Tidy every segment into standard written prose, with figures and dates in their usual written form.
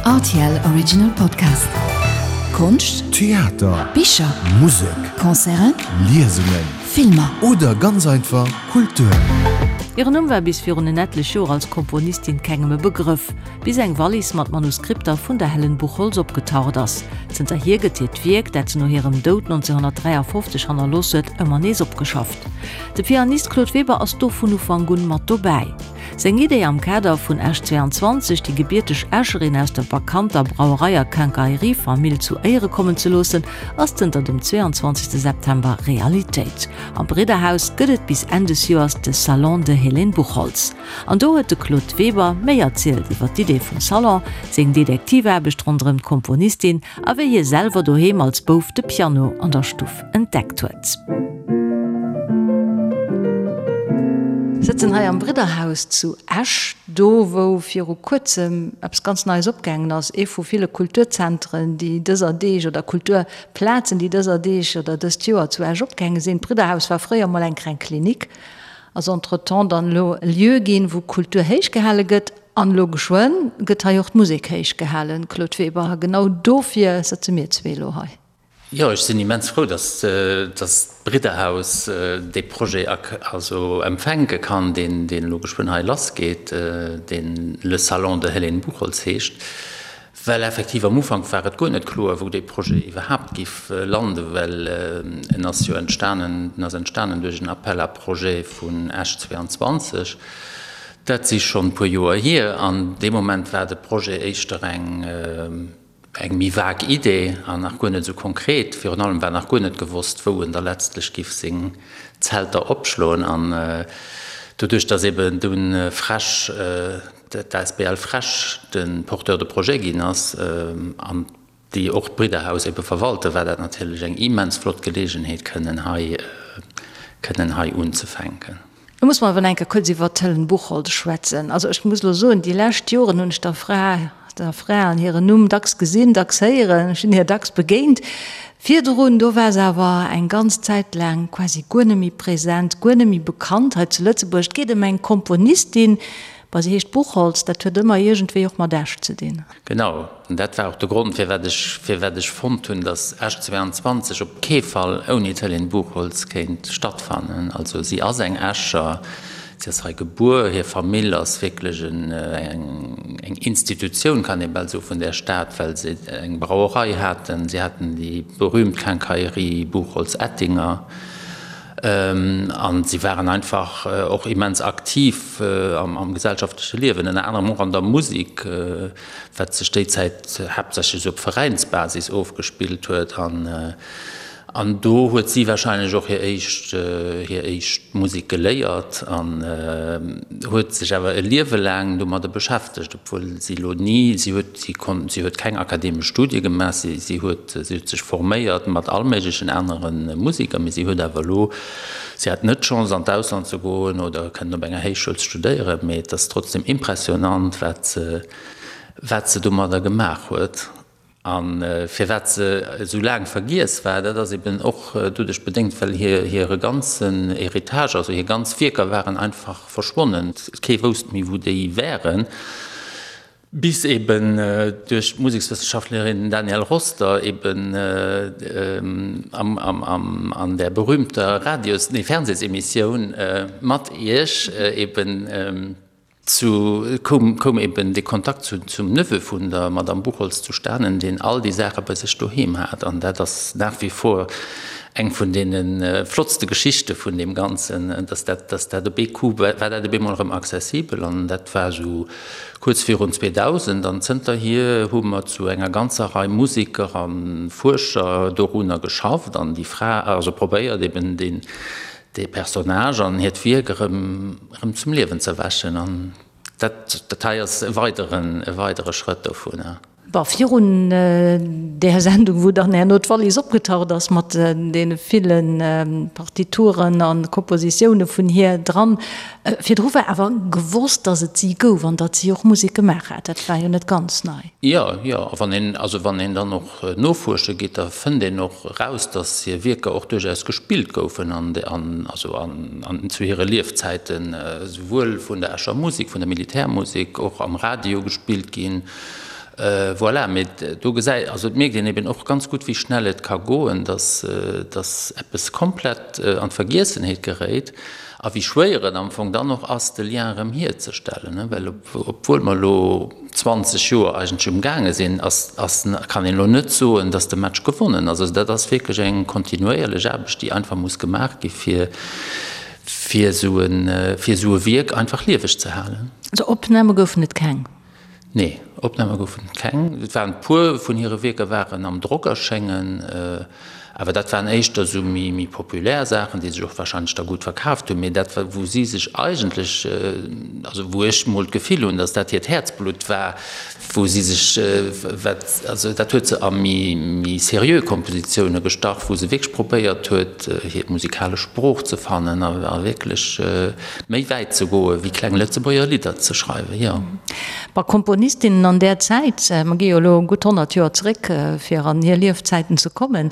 Rtl Original Podcast. Konscht, Theater, Bicher, Musek, Concerten, Liesungen Filmer. Oder ganz einfach Kultur. Hiren Numm war bis virun en ettlech Joer als Komponistin kengem e Begrëff, bis eng Wallis mat Manuskripter vun der Helen Buchholtz opgetaucht ass. Zënterhier gëtt hiert Wierk, dat se no hirem Doud 1953 hannerlooss huet, ëmmer nees opgeschafft. De Pianist Claude Weber ass do vun Ufank un mat dobäi. Seng Idee am Kader vun Esch 22, déi gebierteg Escherin aus der bekannter Brauerei a Quincaillerie-Famill zu Éiere kommen ze loossen, ass zënter dem 22 September Realitéit. Am Bridderhaus gëtt et bis Enn des Joers de Salon de Hélène Buchholtz. An do huet de Claude Weber méi erzielt iwwer d'Idee vum Salon, seng Detektivaarbecht ronderëm d'Komponistin a wéi hie selwer doheem als Bouf de Piano an der Stuff entdeckt huet. Sëtzen hei am Bridderhaus zu Esch, do wou viru kuerzem eppes ganz Neies opgaangen ass, ee vu ville Kulturzentren, déi dëser Deeg, oder Kulturplazen, déi dëser Deeg oder dëst Joer zu Esch opgaange sinn. D'Bridderhaus war fréier mol eng kleng Klinik, ass entretemps dann elo e Lieu ginn, wou Kultur héich gehale gëtt. An elo geschwënn gëtt hei och d'Musek héich gehalen, Claude Weber, a genau dofir sëtze mir zwee elo hei. Jo, ech sinn immens frou, dass d'Bridderhaus dee Projet also empfänke kann, deen elo geschwënn hei lassgeet, deen Le Salon de Hélène Buchholtz heescht, well effektiv am Ufank war et guer net kloer, wou dee Projet iwwerhaapt giff landen, well en ass jo entstanen, en ass entstanen duerch en Appel à projets vun Esch 22. Dat si schonn e puer Joer hier an dee Moment war de Projet éischter eng, Eng méi vag Idee an nach guer net esou konkret. Virun allem war nach guer net gewosst, wou en da letztlech giff seng Zelter opschloen. An doduerch, dass eben dunn Fresch, d'asbl Fresch de Porteur de projet ginn ass an déi och d'Bridderhaus ebe verwalten, war dat natierlech eng immens flott Geleegenheet, kënnen hei, kënnen hei unzefänken. Lo musse mer awer nach eng Kéier kuerz iwwert d'Helen Buchholtz schwätzen. Also ech muss elo soen, déi lescht Joren hunn ech der Fra, der Fra an hiren Numm dacks gesinn, dacks héieren, ech hunn hir dacks begéint. Virdrun, do war se awer eng ganz Zäit laang quasi guer net méi present, guer net méi bekannt hei zu Lëtzebuerg. Et geet ëm eng Komponistin, Bon, se heescht Buchholtz, dat huet ëmmer iergendwéi och mat Esch ze dinn. Genau, an dat war och de Grond, firwat ech, firwat ech fonnt hunn, datt Esch 22 op kee Fall ouni d'Hélène Buchholtz kéint stattfannen. Also si ass eng Escher, si ass hei gebuer, hir Famill ass wierklech en, eng Institutioun, kann ee bal soen, vun där Stad, well se eng Brauerei haten, si haten déi berühmt Quincaillerie Buchholtz-Ettinger. An si waren einfach och immens aktiv am gesellschaftleche Liewen, ënner anerem och an der Musek, wat sech déi Zäit haaptsächlech op Veräinsbasis ofgespillt huet. An do huet si warscheinlech och hir éischt hir éischt Musek geléiert an huet sech awer e Liewe laang domadder beschäftegt, obwuel si elo ni, si huet si konnt, si huet keng akademesch Studie gemaach, si si huet si huet sech forméiert mat allméiglechen anere Museker, mee si huet awer elo, si hat net d'Chance an d'Ausland ze goen oder kënnen op enger Héichschoul ze studéieren, mee et ass trotzdem impressionant wat se wat se domadder gemaach huet. A firwat se esou laang vergiess war, dat ass eben och doduerch bedéngt, well hir hire ganzen Héritage, also hir ganz Wierker waren einfach verschwonnen, kee wousst méi wou déi wären. Bis eben duerch d'Musekswëssenschaftlerin Danielle Roster eben an där berühmter Radios-, nee Fernsehsemissioun mat Iech eben zu koum, koum eben de Kontakt zu, zum Neveu vun der Madame Buchholtz zustanen, deen all déi Saache bei sech doheem hat. An dat ass nach wie vor eng vun deene flottste Geschichte vun deem Ganzen, dass dat, dass dat op ee Coup war dat op eemol erëm accessibel an dat war esou Kuerz virun 2000, an zënterhier hu mer zu enger ganzer Rei Museker a Fuerscher dorunner geschafft an déi Fra, also probéiert eben deen, dee Personnage an hiert Wierk erëm, erëm zum Liewen z'erwächen. An dat, dat hei ass e weideren, e weidere Schrëtt dovunner. Bon, virun där Sendung, wou dann herno d'Wallis opgetaucht ass mat deene ville Partituren a Kompositioune vun hir dran, virdru war awer gewosst, datt et si gouf an datt si och Musek gemaach hat. Dat war jo net ganz nei. Jo, jo. A wann een, also wann een dann och nofuersche geet, da fënnt een och eraus, datt hir Wierker och duerchaus gespillt goufen an, an, also an, an zu hire Liefzäiten, esouwuel vun der Escher Musek, vun der Militärmusek, och am Radio gespillt ginn. Voilà, mee do gesäit, also et mierkt een eben och ganz gutt, wéi schnell et ka goen, dass, dass eppes komplett an d'Vergiessenheet geréit a wéi schwéier et am Fong dann och ass, de Lien erëm hierzestellen. Well obwuel mer elo 20 Joer eigentlech umgaange sinn, ass, ass, kann een elo net soen, dass de Match gewonnen ass. Also dat ass wierklech eng kontinuéierlech Aarbecht, déi einfach muss gemaach gi fir, fir esou e, fir esou e Wierk einfach lieweg ze halen. Also Opname goufen et keng? Nee, Opname goufen et keng. Et waren e puer vun hire Wierker waren am Drock erschéngen, awer dat waren éischter esou méi méi populär Saachen, déi sech och warscheinlech da gutt verkaaft hunn. Mee dat wou si sech eigentlech, also wou ech mol d'Gefill hunn, datt dat hiert Häerzblutt war, wou si sech wat, also dat huet se a méi méi seriö Kompositioune gestach, wou se wierklech probéiert huet, hir musikalesch Sprooch ze fannen a wierklech Méi wäit ze goe wéi kleng Lëtzebuerger Lidder ze schreiwen, jo. Bei Komponistinnen an där Zäit, mer gi jo elo gutt 100 Joer zeréck, fir an hir Liefzäiten ze kommen,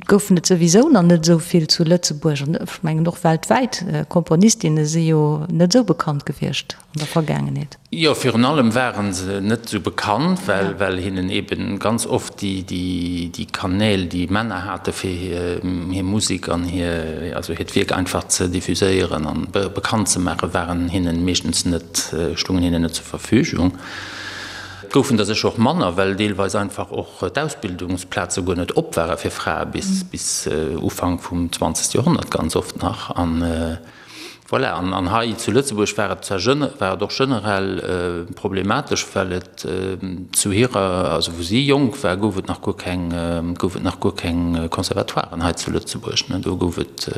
goufen et souwisou nach net esou vill zu Lëtzebuerg an ech mengen och weltwäit. Komponistinne si jo net esou bekannt gewiescht. an der Vergaangenheet? Jo, virun allem ware se net esou bekannt, well well hinnen eben ganz oft déi déi déi Kanäl, déi Männer hate fir hir hir Musek an hir also hiert Wierk einfach ze diffuséieren an bekannt ze maachen, waren hinnen meeschtens net, stungen hinnen net zur Verfügung. Et goufen der sécher och manner, well deelweis einfach och d'Ausbildungsplaze guer net op ware fir Frae bis bis Ufank vum zwanzegste Joerhonnert ganz oft nach an. Voilà, an hei zu Lëtzebuerg war et zwar war et och generell problematesch, well et zu hirer, also wou si jonk war, gouf et nach guer keng, gouf et nach guer keng Conservatoiren hei zu Lëtzebuerg, ne. Do gouf et,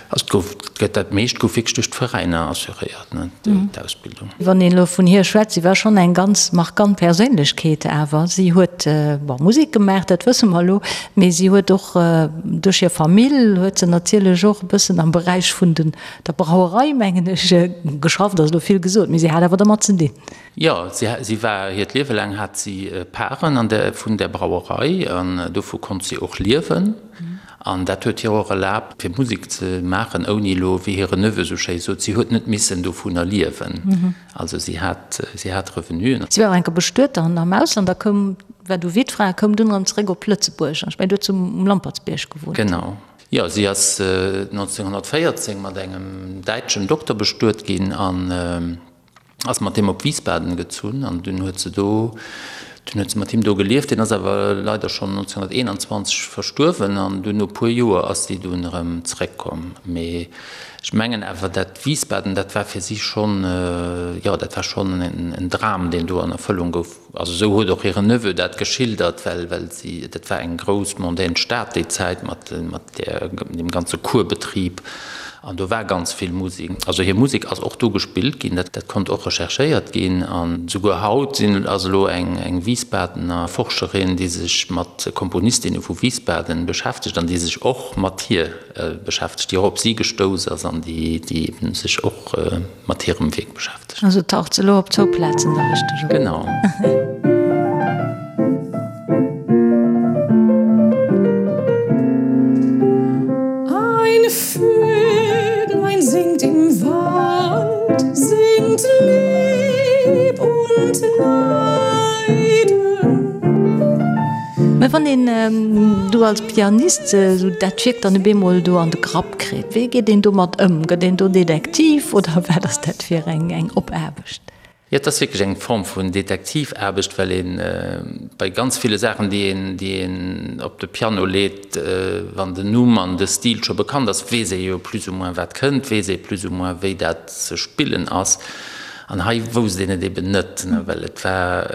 also et gouf, dat meescht gouf wierklech duerch d'Veräiner assuréiert, ne, d'Ausbildung. Wann een elo vun hir schwätzt, si war schonn eng ganz markant Perséinlechkeet awer. Si huet, bon, Musek gemaach, dat wësse mer elo, mee si huet och, Duerch hir Famill huet se natierlech och e bëssen am Beräich vun den der Brauerei, mengen ech, geschafft. Ass elo vill gesot, mee si hat awer dermat ze dinn. Jo, si si war hiert Liewe laang hat si Paren an der vun der Brauerei an dovu konnt si och liewen. An dat huet hir och erlaabt, fir Musek ze maachen, ouni elo, wéi hire Neveu esou schéi sot, si huet net missen dovunner liewen. Also si hat, si hat Revenuen. Si war och enker bestuet dann am Ausland a koum, war du Wittfra a koum dunn erëm zeréck op Lëtzebuerg. Ech mengen, du huet se um Lampertsbierg gewunnt. Genau. Jo, si ass 1914 mat engem däitschen Dokter bestuet ginn an ass mat deem op Wiesbaden gezunn an dunn huet se do, dunn huet se mat him do gelieft. Deen ass awer leider schonn 1921 verstuerwen an dunn no puer Joer ass si dunn erëm zeréckkomm. Mee Ech mengen awer, dat Wiesbaden, dat war fir si schonn, jo, dat war schonn en Dram, deen do an Erfëllung gouf. Also esou huet och hire Neveu dat geschildert, well, well si, dat war eng grouss mondaine Stad déi Zäit mat, mat där, deem ganze Kurbetrib an do war ganz vill Musek. Also hir Musek ass och do gespillt ginn, dat, dat konnt och recherchéiert ginn an souguer haut sinn, ass elo eng, eng Wiesbadener Forscherin, déi sech mat Komponistinne vu Wiesbaden beschäftegt an déi sech och mat hir beschäftegt, déi och op si gestouss ass an déi eben sech och mat hirem Wierk beschäftegt. Also taucht se elo op zwou Plazen da richteg op. Genau. Ein Vöglein singt im Wald, singt Lieb und Leiden. Mä wann een do als Pianist esou dat Wierk dann op eemol do an de Grapp kritt, wéi geet een domat ëm? Gëtt een do Detektiv oder wat ass dat fir eng eng Opaarbecht? Jo, et ass wierklech eng Form vun Detektivaarbecht, well ee bei ganz ville Saachen, déi een, déi een op de Piano leet, wann den Numm an de Stil scho bekannt ass, weess ee jo plus ou moins wat kënnt, weess ee plus ou moins wéi dat ze spillen ass. An hei wousst een et eben net, well et war,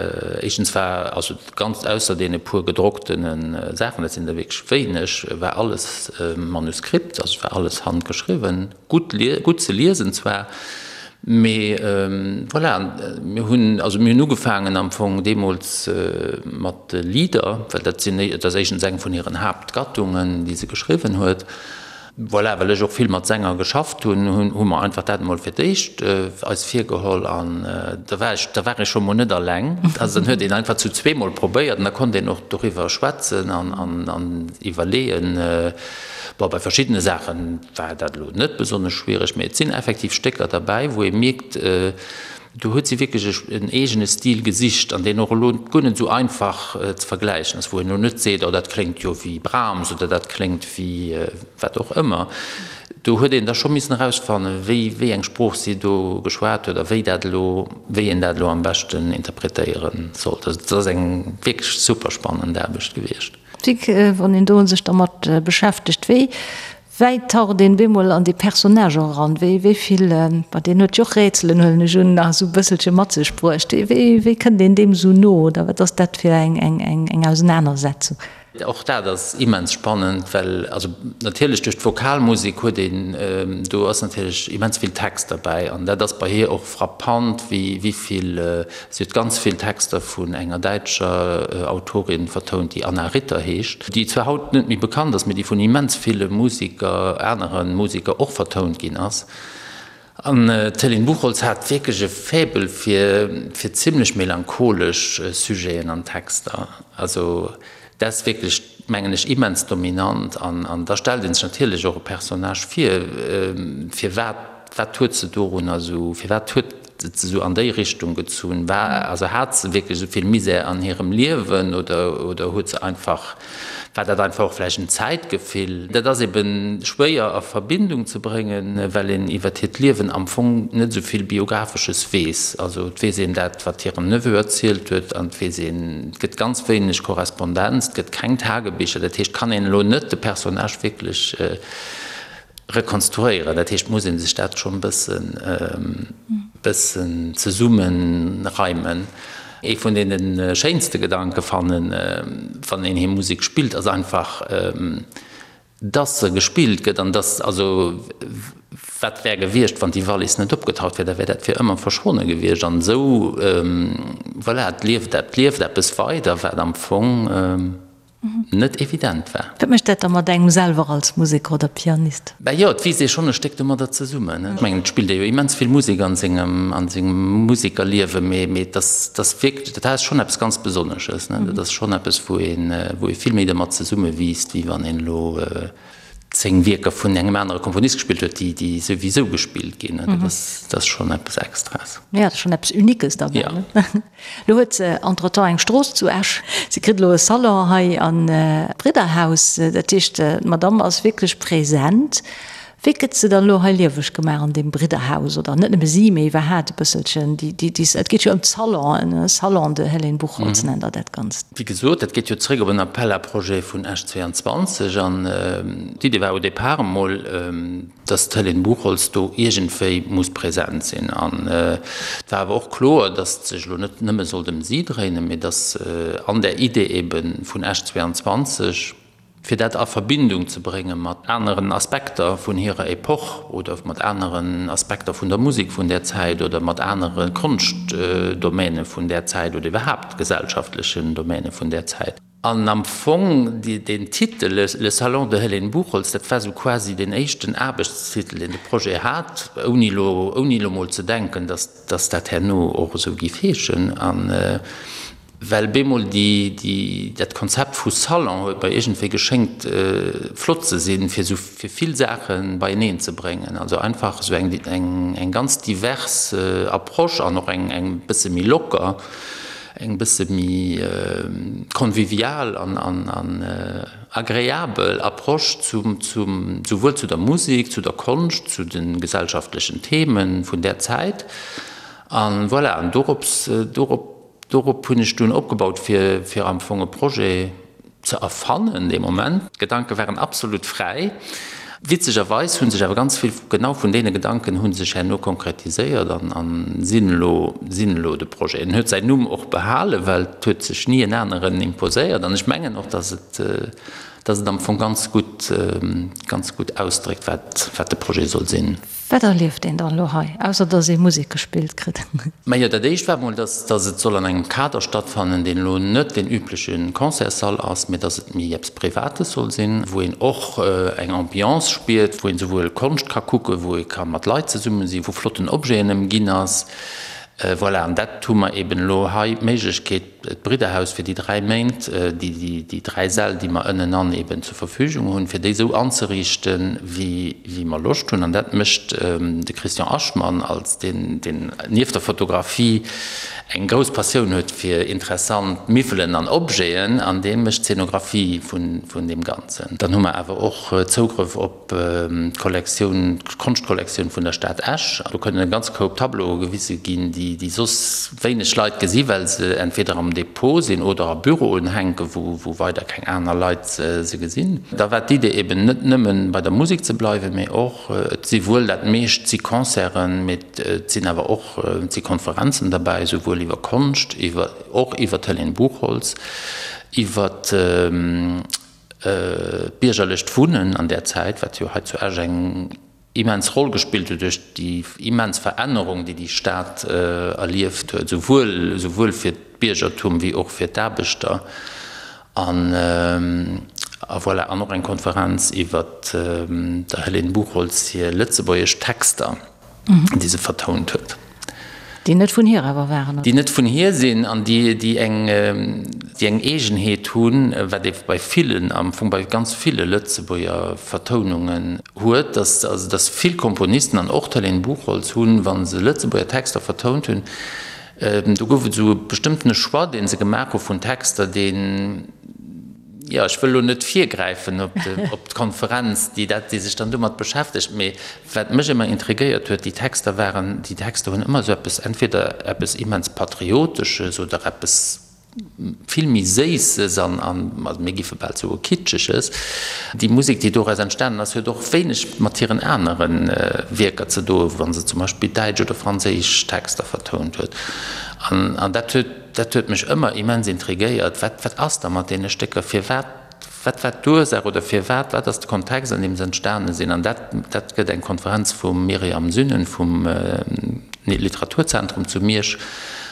éischtens war, also ganz ausser deene puer gedrocktene Saachen, dat sinn der wierklech wéineg, war alles Manuskript, also war alles handgeschriwwen, gutt, gutt ze liesen zwar, mee voilà. Mir hunn, also mir hunn ugefaangen am Fong deemools mat de Lieder, well dat sinn, dat ass éischtens eng vun hiren Haaptgattungen, déi se geschriwwen huet. Voilà, well ech och vill mat Sänger geschafft hunn, hu mer einfach dat emol fir d'éischt eis virgeholl an da war ech, da war ech scho mol net alleng. Also dann huet een einfach zu zweemol probéiert an da konnt een och doriwwer schwätzen an, an, an iwwerleeën. Bon, bei verschiddene Saache war dat elo net besonnesch schwiereg, mee et sinn effektiv Stécker derbäi, wou ee mierkt. Do huet si wierklech en eegene Stil gesicht an deen och elo guer net esou einfach ze vergläichen ass, wou een elo net seet, oh dat kléngt jo wéi Brahms oder dat kléngt wéi wat och ëmmer. Do huet een da scho missen erausfannen, wéi wéi eng Sprooch si do geschwat huet a wéi dat elo, wéi een dat elo am beschten interpretéiere sollt. Also dat ass eng wierklech super spannend Aarbecht gewiescht. Wéi, wann een do sech dermat beschäftegt, wéi Wäit taucht een bemol an déi Personnage och eran? Wéi, wéi vill, ma deen huet jo och Rätselen, huelen ech un, nach esou e bësselche mat sech bruecht. Wéi, wéi kënnt een deem esou no oder wat ass dat fir eng, eng, eng, eng Ausenanersetzung? Och dat ass immens spannend, well also natierlech duerch d'Vokalmusek huet een, do ass natierlech immens vill Text derbäi an dat ass bei hir och frappant, wéi, wéi vill, si huet ganz vill Texter vun enger däitscher Autorin vertount, déi Anna Ritter heescht. Déi zwar haut net méi bekannt ass, mee déi vun immens ville Musiker, anere Musiker och vertount ginn ass. An d'Hélène Buchholtz hat wierklech e Faible fir fir zimlech melancholesch Sujeten an Texter. Also dat ass wierklech, mengen ech, immens dominant. An an da stellt ee sech natierlech och e Personnage vir, firwat, wat huet se dorunner esou, firwat huet et se esou an déi Richtung gezunn? War, also hat se wierklech esou vill Misär an hirem Liewen oder, oder huet se einfach, war dat einfach och vläicht en Zäitgefill? Dat ass ebe schwéier a Verbindung ze bréngen, well een iwwer hiert Liewen am Fong net esou vill Biografesches weess. Also et weess een dat, wat hiren Neveu erzielt huet an et weess een, et gëtt ganz wéineg Korrespondenz, et gëtt keng Tagebicher, dat heescht, kann een elo net de Personnage wierklech Rekonstruéieren, dat heescht, muss ee sech dat schonn e bëssen, bëssen zesummereimen. Ee vun deene schéinste Gedanke fannen, wann een hir Musek spillt, ass einfach, dass se gespillt gëtt an dass, also wat wär gewiescht, wann déi Wallis net opgetaucht wär, da wär dat fir ëmmer verschwonne gewiescht. An esou, voilà, et lieft, et lieft eppes weider, wat am Fong, net evident war. Wat mécht dat da mat engem selwer als Museker oder Pianist? Ben jo, et wiisst ee schonn e Stéck domadder zesummen. Ech mengen, et spillt ee jo immens vill Musek an sengem, an sengem Musekerliewen, mee, mee et ass, et ass wierklech, dat ass schonn eppes ganz Besonnesches, ne. Dat ass schonn eppes, wou een, wou ee vill méi dermat zesummewiisst, wéi wann een elo 10 Wierker vun engem anere Komponist gespillt huet, déi, déi souwisou gespillt ginn. Dat ass, dat ass schonn eppes Extraes. Jo, dat ass schonn eppes Uniques derbäi, ne? Lo huet se entretemps eng Strooss zu Esch. Si kritt elo e Salon hei am Bridderhaus. Dat heescht, d'Madamm ass wierklech present. Wéi gëtt se dann elo hei lieweg gemaach an deem Bridderhaus? Oder net nëmme si, mee iwwerhaat e bësselchen déi, déi, déi, et geet jo ëm d'Salonen, ne? Salon de Hélène Buchholtz nennt Der dat Ganzt. Wéi gesot, dat geet jo zréck op en Appel à projets vun Esch 22 an d'Idee war au départ emol, dass d'Hélène Buchholtz do iergendwéi muss present sinn. An et war awer och kloer, dass et sech elo net nëmme sollt ëm si dréinen, mee dass an där Idee ebe vun Esch 22, fir dat a Verbindung ze brénge mat aneren Aspekter vun hirer Epoch oder mat aneren Aspekter vun der Musek vun där Zäit oder mat anere Konschtdomäne vun där Zäit oder iwwerhaapt gesellschaftlechen Domäne vun där Zäit. An am Fong, deen Titel Le Salon de Hélène Buchholtz, dat war esou quasi deen éischten Aarbechtstitel, deen de Projet hat, ouni elo, ouni elo mol ze denken, datt, datt dat herno och esou géif heeschen. An Well bemol déi, déi, dat Konzept vu Salon huet mer iergendwéi geschéngt flott ze sinn, fir esou, fir vill Saache beieneen ze bréngen. Also einfach esou eng, eng, eng ganz divers Approche an och eng, eng bësse méi locker, eng bësse méi convivial an, an, an agreabel Approche zum, zum, souwuel zu der Musek, zu der Konscht, zu de gesellschaftlechen Themen vun där Zäit. An voilà, an dorops, dorop, Dorop hunn ech dunn opgebaut, fir fir am Fong e Projet ze erfannen dee Moment. D'Gedanke waren absolut fräi. Witzegerweis hu sech awer ganz vill genau vun deene Gedanken hu sech herno konkretiséiert an a sinn elo sinn elo de Projet. En huet säin Numm och behalen, well et huet sech ni en aneren imposéiert an ech mengen och, datt et datt et am Fong ganz gutt ganz gutt ausdréckt, wat wat de Projet soll sinn. Wat erlieft een dann elo hei, ausser dass ee Musek gespillt kritt? Majo, dat éischt war mol, dass dass et soll an engem Kader stattfannen, deen elo net deen übleche Concertssall ass, mee dass et méi eppes Privates soll sinn, wou een och eng Ambiance spiert, wou een souwuel Konscht ka kucken, wou ee ka mat Leit zesumme sinn, wou flotten Objeten ëmginn ass. Voilà, an dat hu mer eben elo hei d'Méiglechkeet, d'Bridderhaus fir déi 3 Méint, déi 3 Säll, déi mer ënnenan eben zur Verfügung hunn, fir déi esou anzeriichten, wéi mer Loscht hunn. An dat mécht de Christian Aschmann als deen, deen nieft der Fotografie eng grouss Passioun huet fir interessant Miwwelen an Objeten, an dee mécht d'Zeenografie vun deem Ganzen. Dann hu mer awer och Zougrëff op d'Kollektioun, d'Konschtkollektioun vun der Stad Esch. Do kënnen e ganz Koup Tableaue gewise ginn, déi soss wéineg Leit gesi well se entweder am Depot sinn oder a Büroen hänken, wou weider keng aner Leit se gesinn. Da war d'Idee eben net nëmme bei der Musek ze bleiwen, mee och, et si wuel dat meescht si Concerten, mee et sinn awer och, et si Konferenzen derbäi, souwuel iwwer Konscht, iwwer, och iwwer d'Helene Buchholtz, iwwer D'biergerlecht Wunnen an där Zäit, wat jo hei zu Esch eng immens Roll gespillt huet duerch déi immens Verännerung, déi déi Stad erlieft huet, souwuel souwuel fir d'Biergertum wéi och fir d'Aarbechter. An a voilà, an och eng Konferenz iwwert der Helene Buchholtz hir lëtzebuergesch Texter. Déi se vertount huet. Déi net vun hir awer waren, oder? Déi net vun hir sinn an déi, déi eng, déi eng Eegenheet hunn, wat ee bei villen, am Fong bei ganz ville Lëtzebuerger Vertounungen huet, dass, also dass vill Komponisten an och d'Helene Buchholtz hunn, wa se Lëtzebuerger Texter vertount hunn, do gouf et esou e bestëmmtene Choix, dee se gemaach hu vun Texter, deen, Jo, ech wëll elo net virgräifen op d'Konferenz, déi dat, déi sech dann domat beschäftegt, mee wat mech ëmmer intriguéiert huet, déi Texter waren, déi Texter hunn ëmmer esou eppes, entweder eppes immens Patriotesches oder eppes vill méi Séisses an, an, also mir géife bal soe Kitscheges. Déi Musek, déi doraus entstanen ass, huet och wéineg mat hiren anere Wierker ze doen, wa se zum Beispill däitsch oder franséisch Texter vertount huet. An, an dat huet. Dat huet mech ëmmer immens intriguéiert. Wat, wat ass da mat deene Stécker? Firwat, wat war d'Ursaach oder firwat, wat ass de Kontext, an deem se entstane sinn? An dat, dat gëtt eng Konferenz vum Myriam Sünnen vum Literaturzentrum zu Miersch.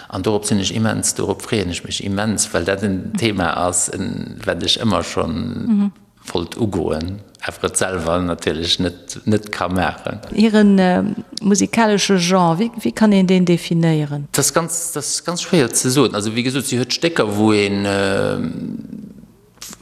An dorop sinn ech immens, dorop freeën ech mech immens, well dat en Thema ass, wat ech ëmmer schonn Wollt ugoen, awer et selwer natierlech net net ka maachen. Hire musikalesche Genre, wéi wéi kann een deen definéieren? Dat ass ganz, dat ass ganz schwéier ze soen. Also wéi gesot, si huet Stécker wou een,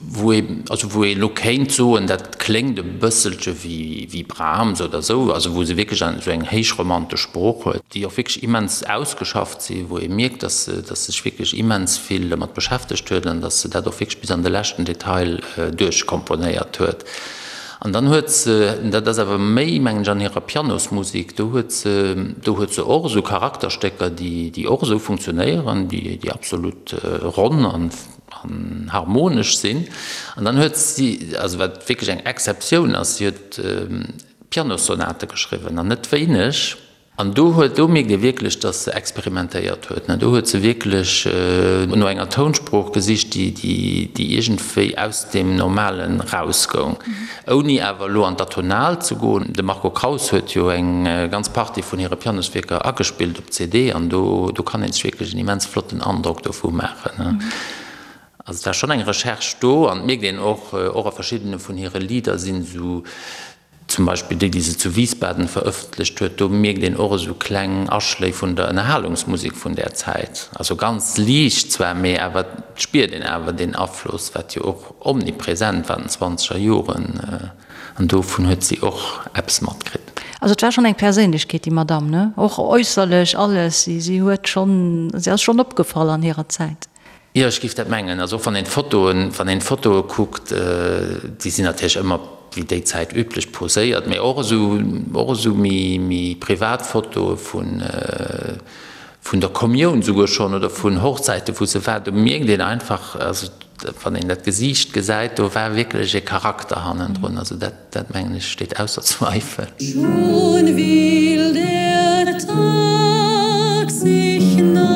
wou ee, also wou ee lo kéint soen, dat kléngt e bësselche wéi wéi Brahms oder esou, also wou se wierklech esou eng héichromantesch Sprooch huet, déi och wierklech immens ausgeschafft sinn, wou ee mierkt, dass se, dass se sech wierklech immens vill domat beschäftegt huet an dass se dat och wierklech bis an de leschten Detail duerchkomponéiert huet. An dann huet se, dat ass awer méi, mengen ech, an hirer Pianosmusek, do huet se, do huet se och esou Charakterstécker, déi, déi och esou funktionéieren, déi, déi absolut ronn an, an harmonesch sinn. An dann huet si, also wat wierklech eng Exceptioun ass, si huet Pianossonate geschriwwen, an net wéineg. An do huet, do mierkt ee wierklech, datt se experimentéiert huet. Do huet se wierklech no enger Tounsprooch gesicht, déi, déi, déi iergendwéi aus deem Normalen rausgoung, ouni awer elo an d'Atonal ze goen. De Marco Kraus huet jo eng ganz Partie vun hire Pianoswierker agespillt op CD, an do, do kann ee sech wierklech en immens flotten Androck dovu maachen. Also et war schonn eng Recherche do, an et mierkt een och, och a verschiddene vun hire Lieder sinn esou, Zum Beispill déi, déi se zu Wiesbaden verëffentlecht huet, do mierkt een och esou kleng Aschléi vun der Ënnerhalungsmusek vun där Zäit. Also ganz liicht zwar, mee awer et spiert een awer deen Afloss, wat jo och omnipresent war an den zwanzeger Joren. An dovun huet si och eppes matkritt. Also et war schonn eng Perséinlechkeet, déi Madamm, ne? Och äusserlech, alles. Si huet schonn, si ass schonn opgefall an hirer Zäit. Jo, ech géif dat mengen. Also och wann een d'Fotoen, wann een d'Fotoe kuckt, déi sinn natierlech ëmmer wéi déi Zäit üblech poséiert, mee och esou, och esou méi, méi privat Fotoe vun, vun der Kommioun souguer schonn oder vun Hochzäiten, wou se war, do mierkt een einfach, also wann een dat Gesiicht gesäit, do war wierklech e Charakter hannendrun. Also dat. Dat mengen ech steet ausser Zweifel. Schon will der Tag sich neigen,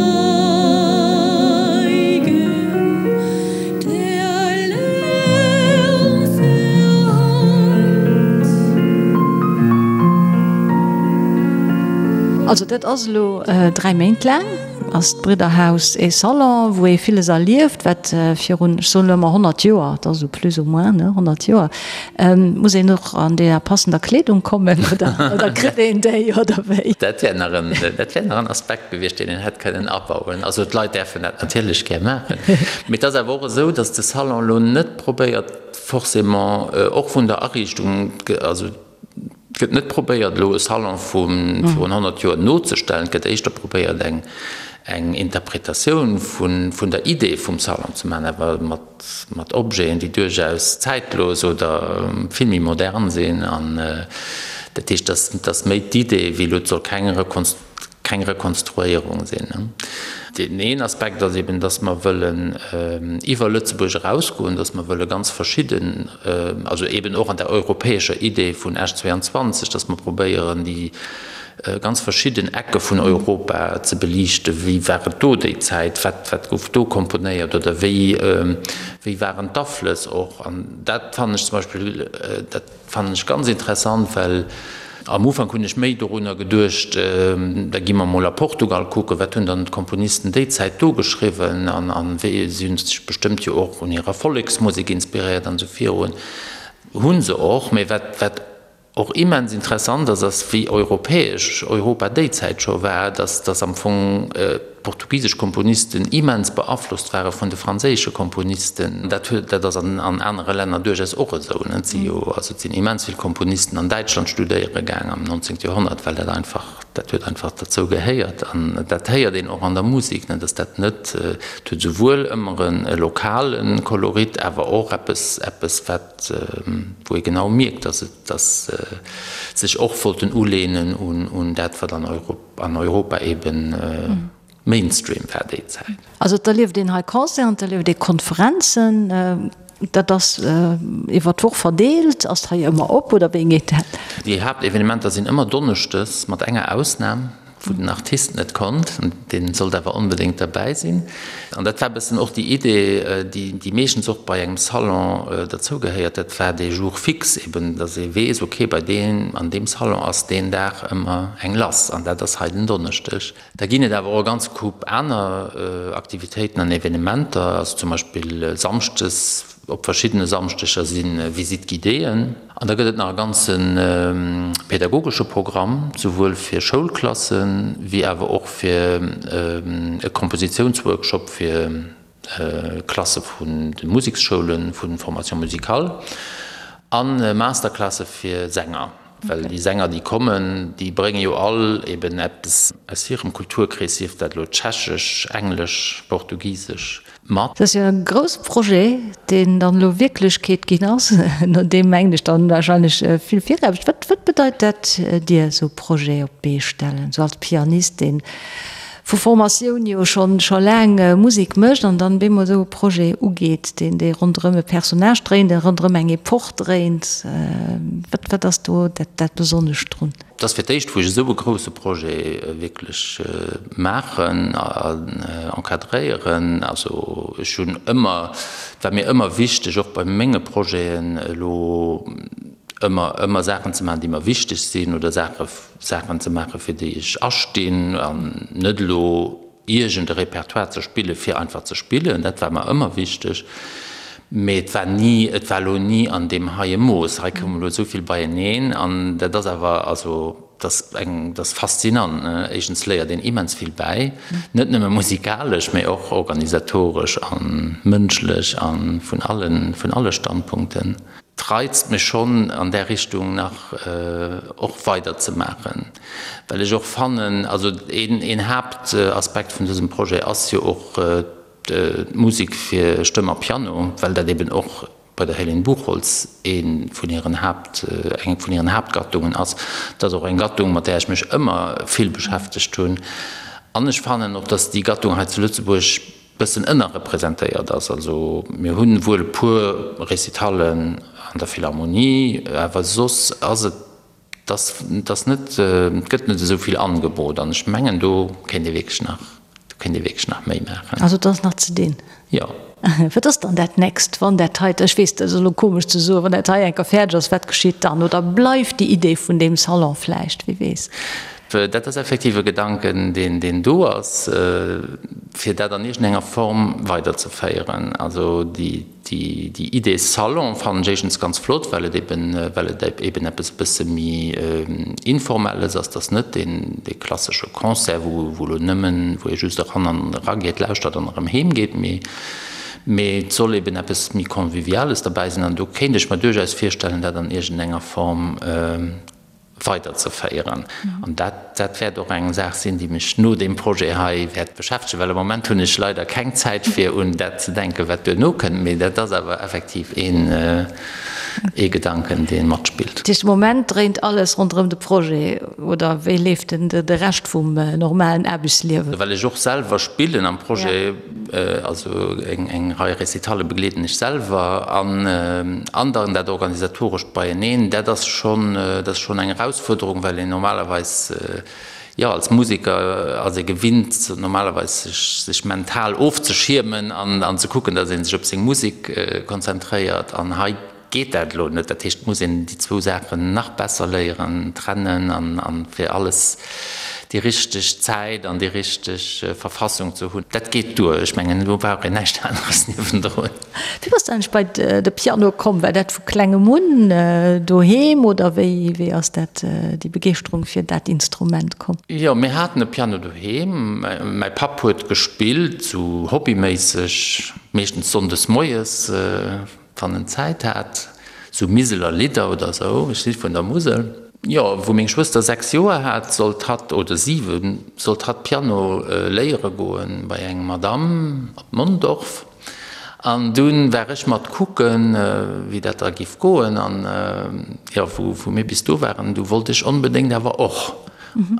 der Lärm verhallt. Also dat ass elo 3 Méint laang. Ass d'Bridderhaus ee Salon, wou ee villes erlieft, wat virun, ech soen elo emol 100 Joer, et ass esou plus ou moins, ne, 100 Joer, muss een och an deeër passender Kleedung kommen oder, oder kritt een déi oder wéi? Dat wär nach en, dat wär nach en Aspekt gewiescht, deen een hätt kënnen abauen. Also d'Leit däerfen dat natierlech gär maachen. Mee et ass awer och esou, datt de Salon elo net probéiert forcément, och vun der Ariichtung, also Et gëtt net probéiert, elo e Salon vu virun 100 Joer nozestellen. Et gëtt éischter probéiert, eng, eng Interpretatioun vun, vun der Idee vum Salon ze maachen, awer mat, mat Objeten, déi duerchaus zäitlos oder vill méi modern sinn. An dat heescht, dass, dass méi d'Idee wéi elo, et soll keng Rekonst, keng Rekonstruéierung sinn. Deen een Aspekt ass eben, dass mer wëllen iwwer Lëtzebuerg erausgoen, dass mer wëlle ganz verschidden, also eben och an der europäescher Idee vun Esch 22, dass mer probéieren, déi ganz verschidden Ecke vun Europa ze beliichten. Wéi war et do déi Zäit? Wat, wat gouf do komponéiert? Oder wéi, wéi waren d'Aflëss och? An dat fannen ech zum Beispill, dat, Fannen ech ganz interessant, well am Ufank hunn ech méi dorunner geduecht, da gi mer mol a Portugal kucken, wat hunn dann d'Komponisten déi Zäit do geschriwwen an an wéi, si hunn sech bestëmmt jo och un hirer Volleksmusek inspiréiert an esou virun. Hu se och, mee wat wat och immens interessant ass, ass wéi europäesch Europa déi Zäit scho war, dass dass am Fong d'portugisesch Komponisten immens beaflosst ware vun de franséische Komponisten. Dat huet, dat ass an anere Länner duerchaus och esou, net? Si jo, also et sinn immens vill Komponisten an Däitschland studéiere gaang am 19. Joerhonnert, well dat einfach, dat huet einfach derzou gehéiert. An dat héiert een och an der Musek, net, dass dat net, et huet esouwuel ëmmer e lokale Kolorit, awer och eppes, eppes wat, wou ee genau mierkt, dass et, dass se sech och wollten ulehnen un dat, wat an Europa, An Europa eben Mainstream war déi Zäit. Also et erlieft een hei Concerten, et erlieft ee Konferenzen. Dat ass iwwer d'Woch verdeelt. Ass hei ëmmer op oder wéi geet dat? Déi Haaptevenementer sinn ëmmer donneschdes, mat enger Ausnam, wou den Artist net konnt. Dee sollt awer onbedéngt derbäi sinn. An dat war e bëssen och déi Idee, déi meeschtens och bei engem Salon derzou gehéiert, dat war dee Jour fixe eben, datt ee weess, okay, bei deem an deem Salon ass deen Dag ëmmer eng lass an dat ass hei den Donneschdeg. Da ginn et awer och e ganze Koup aner Aktivitéiten an Evenementer, also zum Beispill samschdes, op verschiddene Samschdeger si Visite guidéeën. An da gëtt et nach e ganze pädagogesche Programm, souwuel fir Schoulklasse wéi awer och fir e Kompositiounsworkshop fir Klasse vun de Museksschoulen, vu Formation musicale a Masterclasse fir Sänger. Well déi Sänger, déi kommen, déi brénge jo all eben eppes aus hirem Kulturkrees, sief dat elo tschechesch, englesch, portugisesch. Mat. Dat ass jo e grousse Projet, deen dann elo Wierklechkeet ginn ass, no deem, mengen ech, dann wahrscheinlech vill Viraarbecht. Wat, wat bedeit dat dir, esou e Projet op d'Bee stellen, esou als Pianist, dee vu Formatioun jo schonn scho laang Musek mécht an dann bemol esou e Projet ugeet, deen, dee ronderëm e Personnage dréint, dee ronderëm eng Epoch dréint? Wat, wat ass do dat, dat Besonnescht drun? Et ass fir d'éischt, wou ech esou e grouse Projet wierklech maachen an encadréieren. Also ech hunn ëmmer, et war mir ëmmer wichteg, och bei menge Projeten elo ëmmer, ëmmer Saachen ze maachen, déi mer wichteg sinn oder Saache, Saachen ze maachen, fir déi ech astinn an net elo iergend e Repertoire ze spillen, fir einfach ze spillen, dat war mer ëmmer wichteg, mee et war ni, et war elo ni an deem heie Mooss. Hei koum elo esou vill beieneen an dat ass awer, also dat ass eng, dat ass faszinant, ne. Éischtens léiert een immens vill bäi, net nëmme musikalesch, mee och organisatoresch a mënschlech a vun allen, vun alle Standpunkten. Et reizt mech schonn an där Richtung nach och weider ze maachen, well ech och fannen, also een Haaptaspekt vun dësem Projet ass jo och d'Musek fir Stëmm a Piano, well dat eben och bei der Hélène Buchholtz ee vun hiren Haapt, eng vun hiren Haaptgattungen ass. Dat ass och eng Gattung, mat där ech mech ëmmer vill beschäftegt hunn. An ech fannen och, datt déi Gattung hei zu Lëtzebuerg, bëssen ënnerrepresentéiert ass. Also mir hunn wuel e puer Recitallen an der Philharmonie, awer soss ass et, dass dass net, et gëtt net esou vill Angebot an ech mengen do kéint ee wierklech nach, do kéint ee wierklech nach méi maachen. Also et ass nach ze dinn? Jo. Wat ass dann dat nächst, wann dat heite, ech weess dat ass elo komesch ze soen, wann dat hei eng Kéier fäerdeg ass, wat geschitt dann? Oder bleift déi Idee vun deem Salon vläicht, wie weess? Dat ass effektiv e Gedanken, deen do ass, fir dat an iergendenger Form weiderzeféieren. Also déi Idee Salon fannen ech éischtens ganz flott, well et eben, well et eben eppes e bësse méi Informelles ass. Et ass net deen, dee klassesche Concert, wou, wou elo nëmmen, wou ee just eran an erageet, lauschtert an erëm heem geet, mee, mee et soll eben eppes méi Conviviales derbäi sinn. An do kéint ech mer duerchaus virstellen, dat an iergendenger Form weiderzeféieren. An dat, dat wäert och eng Saach sinn, déi mech no deem Projet hei wäert beschäftegen, well am Moment hunn ech leider keng Zäit fir un dat ze denken, wat duerno kënnt. Mee dat ass awer effektiv een, ee Gedanken, dee matspillt. Dat heescht, de Moment dréint alles ronderëm de Projet, oder wéi leeft den de Rescht vum normalen Aarbechtsliewen? Well ech och selwer spillen am Projet, Also eng Rei Récitalle begleeden ech selwer an an dann dat Organisatorescht beieneen, dat ass schonn, dat ass schonn eng Erausfuerderung, well een normalerweis, jo als Museker ass ee gewinnt normalerweis sech sech mental ofzeschiermen an an ze kucken, datt ee sech op seng Musek konzentréiert an hei geet dat elo net. Dat heescht, et muss een déi zwou Saachen nach besser léieren trennen an fir alles déi richteg Zäit an déi richteg Verfassung ze hunn. Dat geet duer. Ech mengen, elo brauch een näischt aneres niewendrun. Wéi bass de eigentlech bei de Piano komm? War dat vu klengem un doheem oder wéi wéi ass dat déi Begeeschterung fir dat Instrument komm? Jo, mir haten e Piano doheem. Mäi Papp huet gespillt, sou hobbyméisseg, meeschtens sonndes moies. Wann en Zäit hat, sou Miseler Lidder oder sou, ech si vun der Musel. Jo, wou meng Schwëster 6 Joer hat, sollt hatt, oder 7, sollt hatt Piano léiere goen bei eng Madame op Mondorf. An dunn war ech mat kucken, wéi dat da giff goen. An jo, wou wou mir bis do waren, du wollt ech onbedéngt awer och.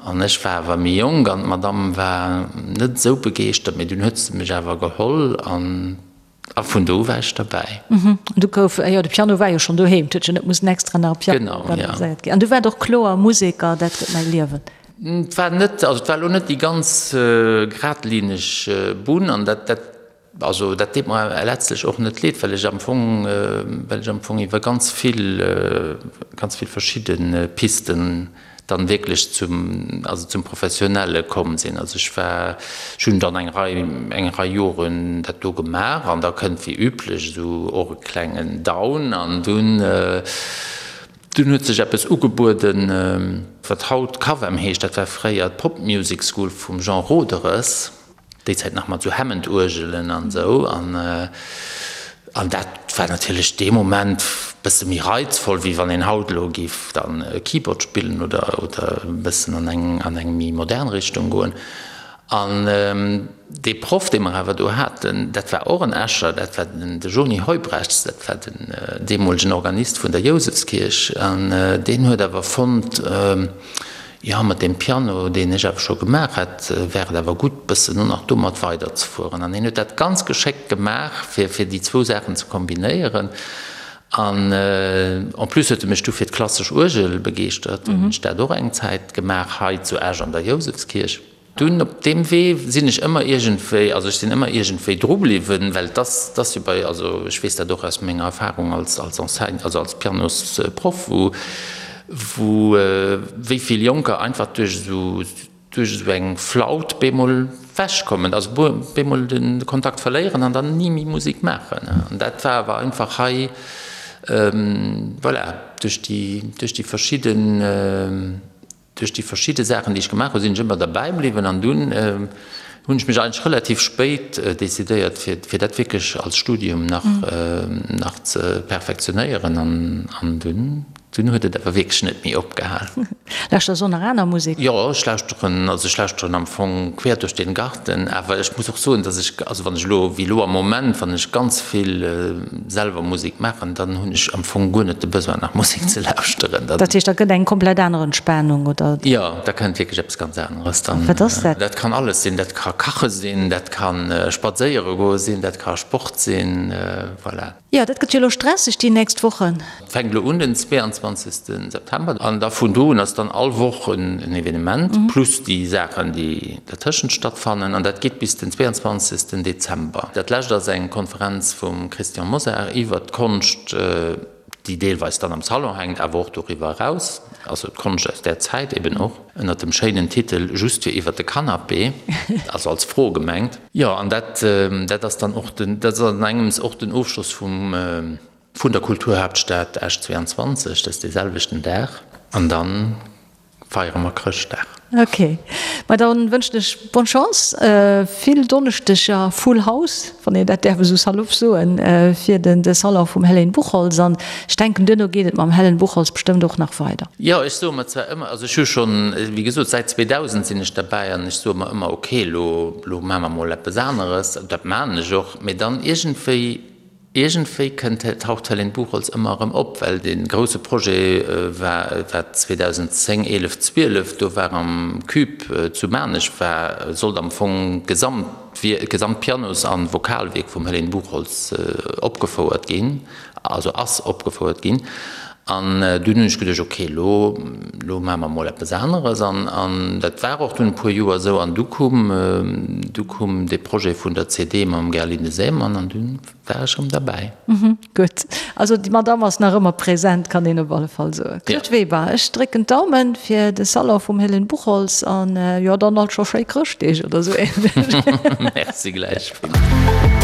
An ech war awer méi jonk an d'Madame war net esou begeeschtert, mee dunn huet se mech awer geholl an A vun do u war ech derbäi. An du gouf, jo, de Piano war jo schonn doheem, et huet jo net mussen extra nach e Piano organiséiert ginn. An du waart och kloer Museker, dat gëtt mäi Liewen. Et war net, also et war elo net déi ganz gradlineg Bunn an dat, dat, also dat deet mer letztlech och net leed, well ech am Fong, well ech am Fong iwwer ganz vill, ganz vill verschidde Pisten dann wierklech zum, also zum Professionelle komm sinn. Also ech war, ech hunn dann eng Rei, eng Rei Joren dat do gemaach an da kënnt wéi üblech esou och e klengen Down an dunn, dunn huet sech eppes ugebueden, wat haut CAVEM heescht, dat war fréier d'Pop Music School vum Jean Roederes. Déi Zäit nach mat sou Hammond-Uergelen an esou. An, an dat war natierlech dee Moment bësse méi reizvoll, wéi wann een haut elo géif dann Keyboard spillen oder, oder e bëssen an eng, an eng méi modern Richtung goen. An dee Proff, dee mer awer do haten, dat war och en Escher, dat war den, de Jony Heubrechts, dat war den deemolegen Organist vun der Jousefskierch. An deen huet awer fonnt, Jo, mat deem Piano, deen ech awer scho gemaach hat, wär et awer gutt, bëssen och nach domat weiderzefueren. An hien huet dat ganz geschéckt gemaach, fir, fir déi zwou Saachen ze kombinéieren. An en plus huet e mech du fir d'klassesch Uergel begeeschtert. Hunn ech dat och eng Zäit gemaach hei zu Esch an der Jousefskierch. Dunn op deem Wee sinn ech ëmmer iergendwéi, also ech sinn ëmmer iergendwéi dru bliwwen, well et ass, et ass jo bei, also ech weess dat och aus menger Erfahrung als, als Enseignant, also als Pianosproff, wou, wou wéi vill Jonker einfach duerch esou, duerch esou eng Flaut bemol wechkommen, also bemol de Kontakt verléieren an dann ni méi Musek maachen. An dat war awer einfach hei, voilà, duerch déi, duerch déi verschidden, Duerch déi verschidde Saachen, déi ech gemaach hunn, sinn ech ëmmer derbäi bliwwen an dunn hunn ech mech eigentlech relativ spéit decidéiert, fir, fir dat wierklech als Studium nach, nach ze perfektionéieren an, an dunn, dunn huet et awer wierklech net méi opgehal. Lauschters och nach aner Musek? Jo, ech lauschteren, also ech lauschteren am Fong quer durch den Garten, awer ech muss och soen, dass ech, also wann ech elo, wéi elo am Moment, wann ech ganz vill selwer Musek maachen, dann hunn ech am Fong guer net de Besoin nach Musek ze lauschteren. Dat heescht, da gëtt eng komplett aner Entspanung, oder? Jo, da kënnt wierklech eppes ganz aneres dann. Wat ass dat? Dat kann alles sinn, dat ka kache sinn, dat ka spadséiere goe sinn, dat ka Sport sinn, voilà. Jo, dat gëtt jo elo stresseg déi nächst Wochen. Fänkt elo un den 22 September an da vun do un ass dann all Woch en Evenement plus déi Saachen, déi dertëschent stattfannen an dat geet bis den 22 Dezember. Dat lescht ass eng Konferenz vum Christian Mosar iwwert d'Konscht. Déi deelweis dann am Salon hänkt, awer och doriwwer eraus, also d'Konscht aus där Zäit eben och, ënnert dem schéinen Titel Just fir iwwer de Canapé, also als Fro gemengt. Jo, an dat, dat ass dann och den, dat ass an engems och den Ofschloss vum, vun der Kulturhaaptstad Esch 22, dat ass dee selwechten Dag. An dann Feiere mer Chrëschtdag. Ok, ma dann wënschen ech bonne Chance, vill Donneschdeger full house, wann een dat däerf esou salopp soen, fir den de Salon vum Hélène Buchholtz an ech denken duerno geet et mam Hélène Buchholtz bestëmmt och nach weider. Jo, ech soe mer zwar ëmmer, also ech hu schonn, wéi gesot, säit 2000 sinn ech derbäi an ech soe mer ëmmer, ok, elo, elo maache mer mol eppes aneres, dat maachen ech och, mee dann iergendwéi Iergendwéi kënnt, taucht d'Hélène Buchholtz ëmmer erëm op, well dee grousse Projet war, war 2010, 11, 12, do war am Cube zu Maarnech war, sollt am Fong d'Gesamtwierk, d'gesamt Pianos an Vokalwierk vum Hélène Buchholtz opgefouert ginn, also ass opgefouert ginn. An dunn hunn ech geduecht, ok, elo, elo maache mer mol eppes aneres. An, an dat war och dunn e puer Joer esou. An du koum, du koum dee Projet vun der CD mam Gerlinde Sämann an dunn war ech erëm derbäi. Gutt, also déi Madamm ass nach ëmmer present, kann een op alle Fall soen. Claude Weber, ech drécken d'Daumen fir de Salon vum Hélène Buchholtz an jo, dann alt scho schéi Chrëschtdeeg oder esou ähnlech. Merci gläichfalls.